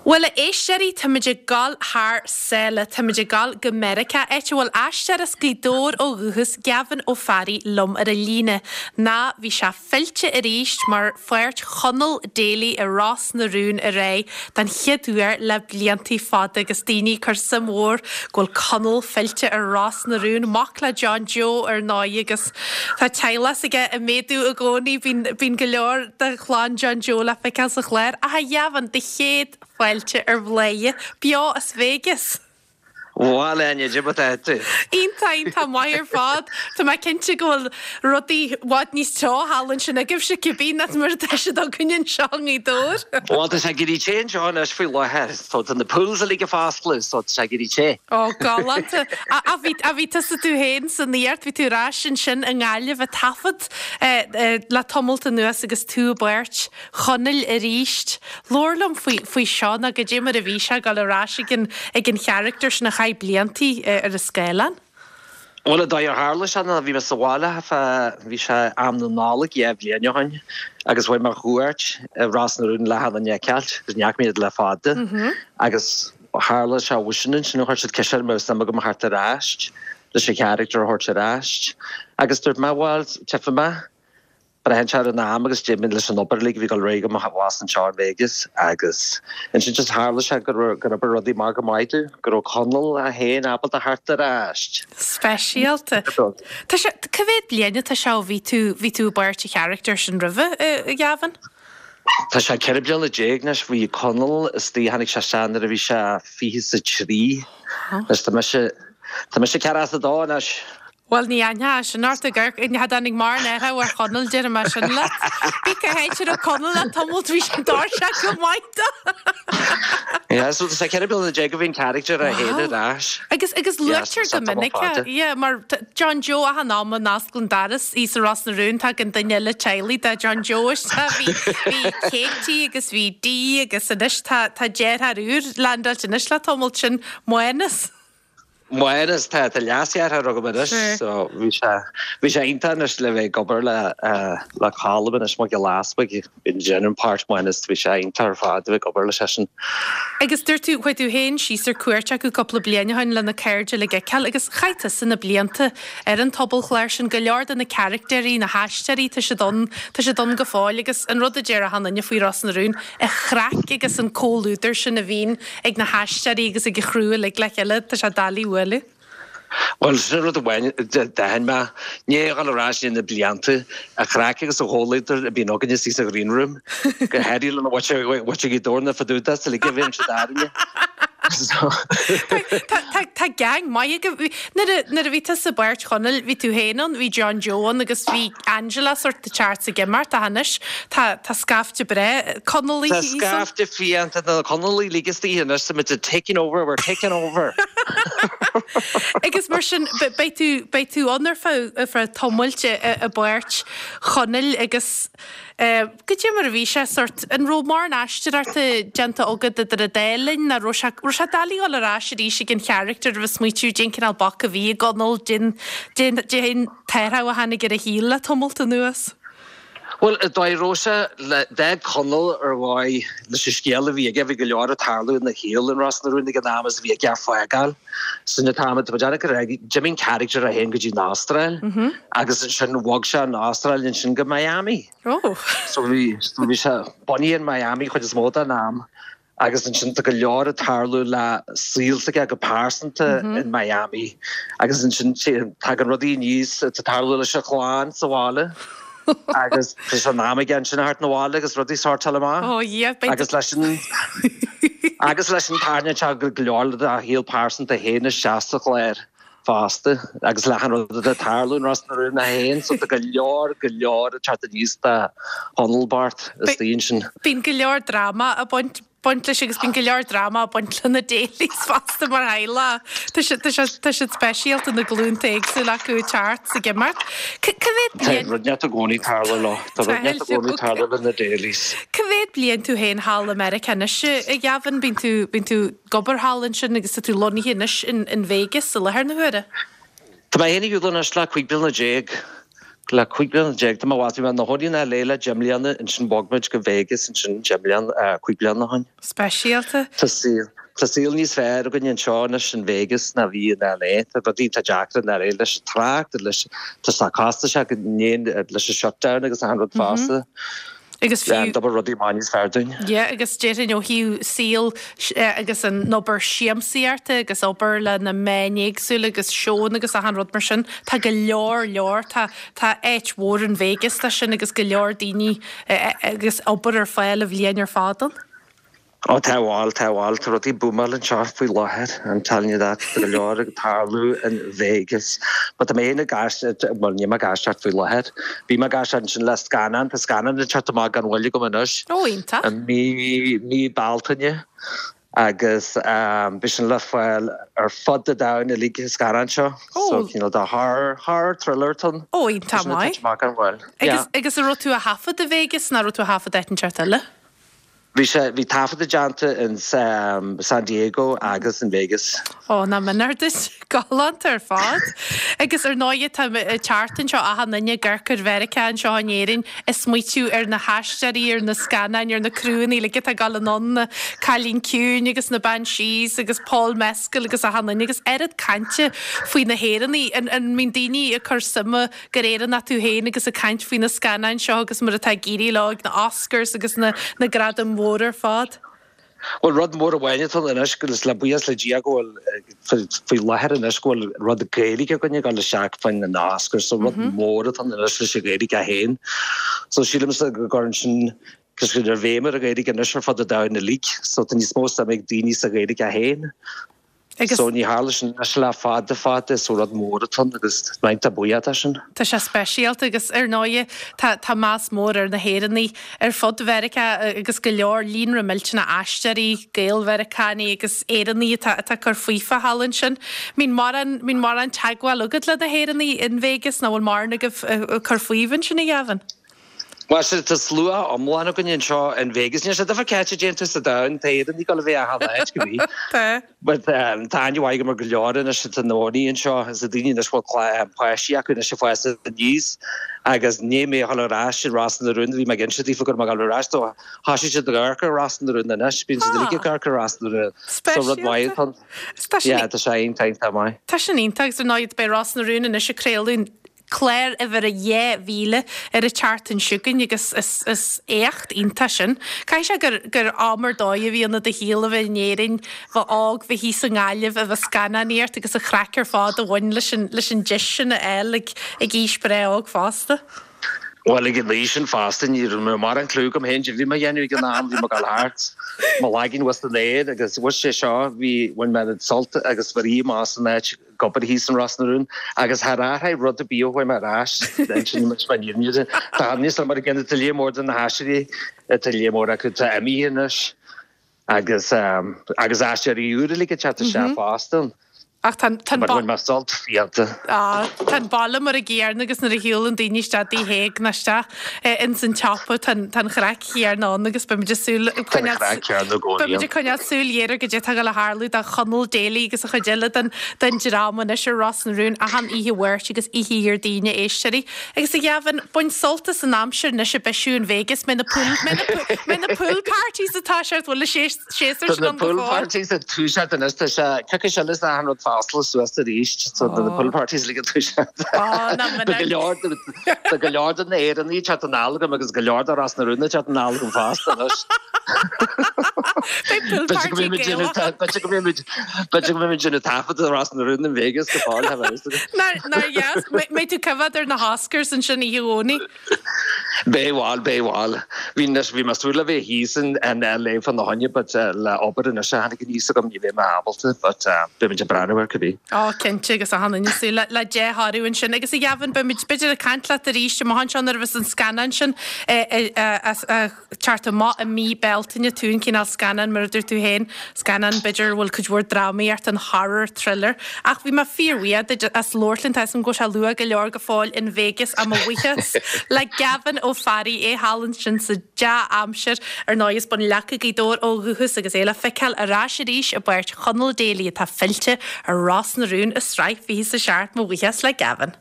Bhuel, a éisteoirí, táimid ag gabháil thar sáile, táimid ag gabháil go Meiriceá, áit a bhfuil aisteoir as Gaoth Dobhair ó dhúchas, Gavin Ó Fearraigh, liom ar an líne. Ná, bhí sé fillte arís mar pháirt Chonall Daly i Ros na Rún aréir den chéad uair le bliantaí fada agus daoine ag cur suim mhór go bhfuil Conall fillte ar Ros na Rún, mac le John Joe ar ndóigh agus tá teaghlach s'aige ag méadú i gcónaí, bíonn, bíonn go leor de chlann John Joe le feiceáil sa chlár. Ach a Ghavin, do chéad fáilte ar Bhladhaire, beo as Vegas! Bhuel, a Áine, cad é mar atá tú? Iontach, iontach maith ar fad. Tá mé cinnte go bhfuil rudaí i bhfad níos teo thall ansin agaibhse cibé ná mar atá siad againn anseo i nGaoth Dobhair. Bhuel, tá sé ag éirí te anseo anois faoi láthair. So tá na pools uilig ag foscladh, so tá sé ag éirí te. Ó, galánta. Ach bhí, ach bhí tusa tú féin san iarracht, bhí tú ar ais ansin i nGaillimh ag taifead le tamalt anuas agus tú i bpáirt Chonaill arís. Labhair liom faoi, faoi seo nó goidé mar a bhí sé ag dul ar ais ag an, ag an character sin a chaith bliantaí ar an scáileán. Bhuel, an dóigh ar tharla sé ná bhí mé sa bhaile fá, bhí sé am na Nollag 2 bhliain ó shin agus chuaigh mé ar chuairt i Ros na Rún le Helen a fheiceáilt agus ní fhaca mé iad le fada agus tharla sé uaidh sin ansin chuir siad ceist orm an raibh suim agam a theacht ar ais leis an character a thabhairt ar ais agus dúirt mé bhuel tchífidh mé. Braitheann sé ar an am agus d'imigh leis an obair uilig a bhí ag dul ar aghaidh agam abhus anseo in Vegas agus ansin just tharla sé gur gur oibir rudaí amach go maith domh, go raibh Conall é féin ábalta theacht ar ais. Speisialta. Tá sé, cá mhéad bliain atá sé ó bhí tú, bhí tú i bpáirt an character sin roimhe, a Ghavin? Tá sé 14 bliana anois, bhí Conall istigh, tháinig sé isteach nuair a bhí sé 23, anois tá mise, tá mise 42 anois. Bhuel, ní aithneofá sin ort ag amharc, cha dtáinig mórán athrú ar Chonall, déarfaidh mé sin leat. Bí cá háit a raibh Conall le tamalt, bhí sé doirseach go maith dó. Yeah, so tá sé 14 bliana ó bhí an character é féin ar ais. Agus, agus luaitear go minic é, yeah, mar John Joe achan am a n-osclaíonn doras thíos i Ros na Rún, tagann duine eile teaghlaigh de John Joe isteach, bhí, bhí Katie agus bhí Dee agus anois tá, tá deartháir úr landáilte anois le tamalt, sin Mánas. Mánas, tá, tá leasdheartháir agam anois so bhí sé, bhí sé iontach anois le bheith ag obair le, le Colm anois Mac Giolla Easbuig, ag déanamh páirt Mhánas, bhí sé iontach ar fad a bheith ag obair leis seisean. Agus dúirt tú, chuaigh tú féin síos ar cuairt acu cúpla bliain ó shin le na cairde uilig a fheiceáil agus chaith tusa na blianta ar an tobalchlár sin, go leor de na caractéirí, na haisteoirí, tá siad ann, tá siad ann go fóill agus an rud a deir achan duine faoi Ros na Rún, an chraic agus an comhluadar sin a bhíonn ag na haisteoirí agus ag an chriú uilig le chéile, tá sé doiligh a bhualadh. Bhuel, sin rud amháin a d'aithin mé, i ndiaidh a dhul ar ais i ndiaidh na blianta, an chraic agus an chomhluadar a bhíonn againne istigh sa ghreen room, go háirithe lena mhuintir Ghaoth Dobhair na Fadúdas uilig a bhíonn siad arainne. Tá gang maith agaibh. Nuair a bhí tusa i bpáirt Chonaill, bhí tú féin ann, bhí John Joe ann agus bhí Angela sórt ag teacht 's ag imeacht ach anois tá tá scaifte breá Conallaigh Tá thíos ann. scaifte fiánta de na Conallaigh uilig istigh anois, tá muid taking over, we're taking over. Agus mar sin beidh tú beidh tú ann ar feadh ar feadh tamaill i i bpáirt Chonaill agus goidé mar a bhí sé sórt an raibh mórán aisteoireachta déanta agat idir an dá linn nó raibh sé raibh sé doiligh dul ar ais arís ag an character a bheith smaoitiú cén cineál boc a bhí i gConall cén cén cén t-athrú a tháinig ar a shaol le tamalt anuas. Bhuel, an dóigh a raibh sé le d'fhág Conall ar dhóigh leis an scéal a bhí aige, bhí go leor ag tarlú ina shaol in Ros na Rún ag an am is a bhí aige a fhágáil. Sin an t-am atá muid ag rá, d'imigh an character é féin go dtí an Astráil agus ansin bhog sé ón Astráil ansin go Miami. Oh. So bhí, bhí sé bunaithe in Miami chuid is mó den am. Agus ansin tá go leor ag tarlú le saol s'aige go pearsanta in Miami agus ansin tagann rudaí aníos atá ag tarlú leis an chlann sa bhaile agus tá sé in am aige ansin a theacht 'na bhaile agus rudaí a shórtáil amach. Oh yeah, beidh Agus leis an agus leis sin tarraingíonn sé go leor dá shaol pearsanta féin isteach sa chlár. fosta agus le achan rud atá ag tarlú in Ros na Rún é féin so tá go leor, go leor ag teacht aníos do Chonall bocht istigh ansin. Bíonn go leor dráma ag baint, baint leis agus bíonn go leor dráma ag baint le na Daly's fosta mar theaghlach. Tá siad, tá siad, tá siad speisialta na glúnta éagsúla acu ag teacht 's ag imeacht. Cá mhéad Tá bliain. rud inteacht i gcónaí ag tarlú leo, tá rud inteacht i gcónaí ag tarlú le na Daly's. Cá mhéad bliain tú féin thall i Meiriceá anois, a Ghavin? Bíonn tú, bíonn tú. ag obair thall ansin agus tá tú lonnaithe anois in Vegas i láthair na huaire. Tá mé féin ar shiúl anois le 15 bliana. Le 15 bliana tá mé bhí mé i mo chónaí in LA le 10 mbliana, ansin bhog muid go Vegas ansin 10 mbliana, 5 bliana ó shin. Speisialta. Tá saol, tá saol níos fearr againn anseo anois in Vegas ná bhí in LA. Tá rudaí iontach deacair in LA leis an trácht, leis, tá sé costasach leis an shutdown agus achan rud fosta. Agus fiú. D'obair rudaí amach níos fearr dúinn. Yeah, agus déarfainn ó thaobh saol agus an obair siamsaíochta agus obair le na meáin éagsúla agus seónna agus achan rud mar sin, tá go leor leor, tá tá áit mhór in Vegas dó sin agus go leor daoine agus obair ar fáil an bhliain ar fad ann. Ó tá bhuel, tá bhuel, tá rudaí ag búmáil anseo faoi láthair, I'm telling you that, tá go leor ag tarlú in Vegas. But tá mé féin ag aisteoireacht, bhuel níl mé ag aisteoireacht faoi láthair, bhí mé ag aisteoireacht ansin le scannán, tá scannán ag teacht amach gan mhoill agam anois. Ó iontach. I mí, mí Bealtaine agus beidh sin le fáil ar fud an domhain uilig an scannán seo. Ó. So cineál de horror, horror thriller atá ann. Ó iontach maith. Amach gan mhoill. Agus, agus an raibh tú á thaifead i Vegas nó raibh tú á thaifead áit inteacht eile? Bhí sé, bhí taifeadadh déanta in San Diego agus in Vegas. Ó, nach méanar duit. Galánta ar fad. Agus ar ndóighe tá ag teacht anseo achan duine ag amharc ar Mheiriceá anseo in Éirinn ag smaoitiú ar na haisteoirí, ar na scannáin, ar na criúnna uilig atá ag dul anonn, na Cailín Ciúin agus na Banshees agus Paul Mescal agus achan duine agus oiread cainte faoi na hÉireannaigh. An, an mbíonn daoine ag cur suime gur Éireannach tú féin agus ag caint faoi na scannáin seo agus mar atá ag éirí leo ag na Oscars agus na na gradaim mhóra ar fad. Bhuel, rud mór amháin atá ann anois, agus le buíochas le Dia go bhfuil, faoi láthair anois, go bhfuil rud Gaeilge againn ag dul isteach fá choinne na Oscars, so rud mór atá ann anois leis an Ghaeilge féin. So sílimse go gcuireann sin, cos go raibh béim ar an Ghaeilge anois ar fud an domhain uilig, so tá níos mó suime ag daoine sa Ghaeilge féin. Agus. So ní tharla sin anois le fada fada, so rud mór atá ann agus tá mé iontach buíoch de sin. Tá sé speisialta agus ar ndóighe tá tá meas mór ar na hÉireannaigh ar fud Mheiriceá agus go leor líonra millteanach aisteoirí, Gael-Mheiriceánaigh agus Éireannaigh atá atá ag cur faofa thall ansin. Mbíonn mórán mbíonn mórán teagmháil agat le na hÉireannaigh in Vegas nó bhfuil mórán agaibh ag cur faoibh ansin a Ghavin? Bhuel, sea, tá slua iomlán againn anseo in Vegas. Níl sé difear cá háit a dtéann tú sa domhan, tá Éireannaigh ag dul a bheith achan áit, go bhí. Tá. But tá aithne mhaith agam ar go leor anois atá ina gcónaí anseo, is na daoine anois a bhfuil páistí acu anois ag fás aníos agus i ndiaidh mé a dhul ar ais i Ros na Rún, bhí mé ag inse daofa go raibh mé ag dul ar ais, so thosaigh siad ag amharc ar Ros na Rún anois, bíonn siad uilig ag amharc ar Ros na Rún. So rud maith atá ann. Speisialta. Yeah, tá sé iontach, iontach maith. Tá sin iontach agus ar ndóigh beidh Ros na Rún anois ag craoladh clár uimhir a 2000 ar an tseachtain seo chugainn agus is éacht iontach sin. Caithfidh sé gur gur am ar dóigh a bhí ann i do shaol a bheith in Éirinn, bheith óg, bheith thíos i nGaillimh, a bheith ag scannánaíocht agus an chraic ar fad a bhain leis an leis an deis sin a fháil ag ag aois breá óg fosta. Bhuel, ag an aois sin fosta, ní raibh mé mórán clue agam féin caidé a bhí mé a dhéanamh ag an am, bhí mé ag dul thart, mo laigín bhus san aer agus bhus sé seo, bhí, bhain mé an sult agus bhí amach san áit ag obair thíos in Ros na Rún agus char athraigh rud ar bith ó chuaigh mé ar ais, ansin muid mar fhírinne. Tá níos mar a gcéanna, tá léar mór de na haisteoirí, tá léar mór acu atá imithe anois agus agus aisteoirí úra uilig ag teacht isteach fosta. Ach tá an, tá an But bhain mé sult fiánta. Á, tá an baile mar an gcéanna agus nuair a shiúlann daoine isteach i dTigh Thaidhg nó isteach ins an tsiopa tá an, tá an chraic chéanna ann agus beimid ag súil, ag Tá an coinneáil, chraic chéanna i gcónaí beimid ann. ag coinneáil súil ghéar ar goidé atá ag dul a tharlú do Chonall Daly agus an chuid eile den, den dream anois ar Ros na Rún achan oíche Mháirt agus oíche Dhéardaoin a éisteoirí. Agus a Ghavin, bain sult as an aimsir anois ag bisiú in Vegas, mbeidh na pool, mbeidh na pool, mbeidh na pool parties ag toiseacht, bhfuil an séasúr Tá sin na ann go pool fóill? parties ag toiseacht anois, tá sé coicís eile is achan rud ag oscailt suas arís, so tá na pool parties uilig ag toiseacht. Ó, ná Tá go leor, tá go leor de na hÉireannaigh ag teacht anall agam agus go leor de Ros na Rún ag teacht anall agam fosta anois. Beidh pool B'fhéidir go party mbeidh muid Gaelach. b'fhéidir go mbeidh muid, b'fhéidir go mbeidh muid ag déanamh taifead de Ros na Rún in Vegas go fóill, tá a fhios agat. Nár, nár dheas, mbeidh tú ag coimhéad ar na hOscars ansin oíche Dhomhnaigh. Beidh bhuel, beidh bhuel. Bhí anois, bhí mé súil le bheith thíos in LA fá na choinne but le obair anois a tháinig aníos agam ní bheidh mé ábalta but beidh muid ag breathnú air cibé. Ó, cinnte, agus achan duine ag súil le, le dea-thoradh ansin. Agus a Ghavin, beidh muid b'fhéidir ag caint leat arís amach anseo nuair a bheas an scannán sin ag teacht amach i mí Bealtaine, tú an cineál scannán mar a dúirt tú féin, scannán b'fhéidir a bhfuil cuid mhór drámaíocht ann, horror, thriller. Ach bhí mé fíorbhuíoch duit as labhairt linn, tá 'fhios a'm go bhfuil sé luath go leor go fóill in Vegas ach mo bhuíochas le Gavin Ó Fearraigh, é thall ansin sa dea-aimsir. Ar ndóigh as Bun Leaca, Gaoth Dobhair ó dhúchas agus é le feiceáil ar ais arís i bpáirt Chonall Daly atá fillte ar Ros na Rún i sraith 27 Mo bhuíochas le Gavin.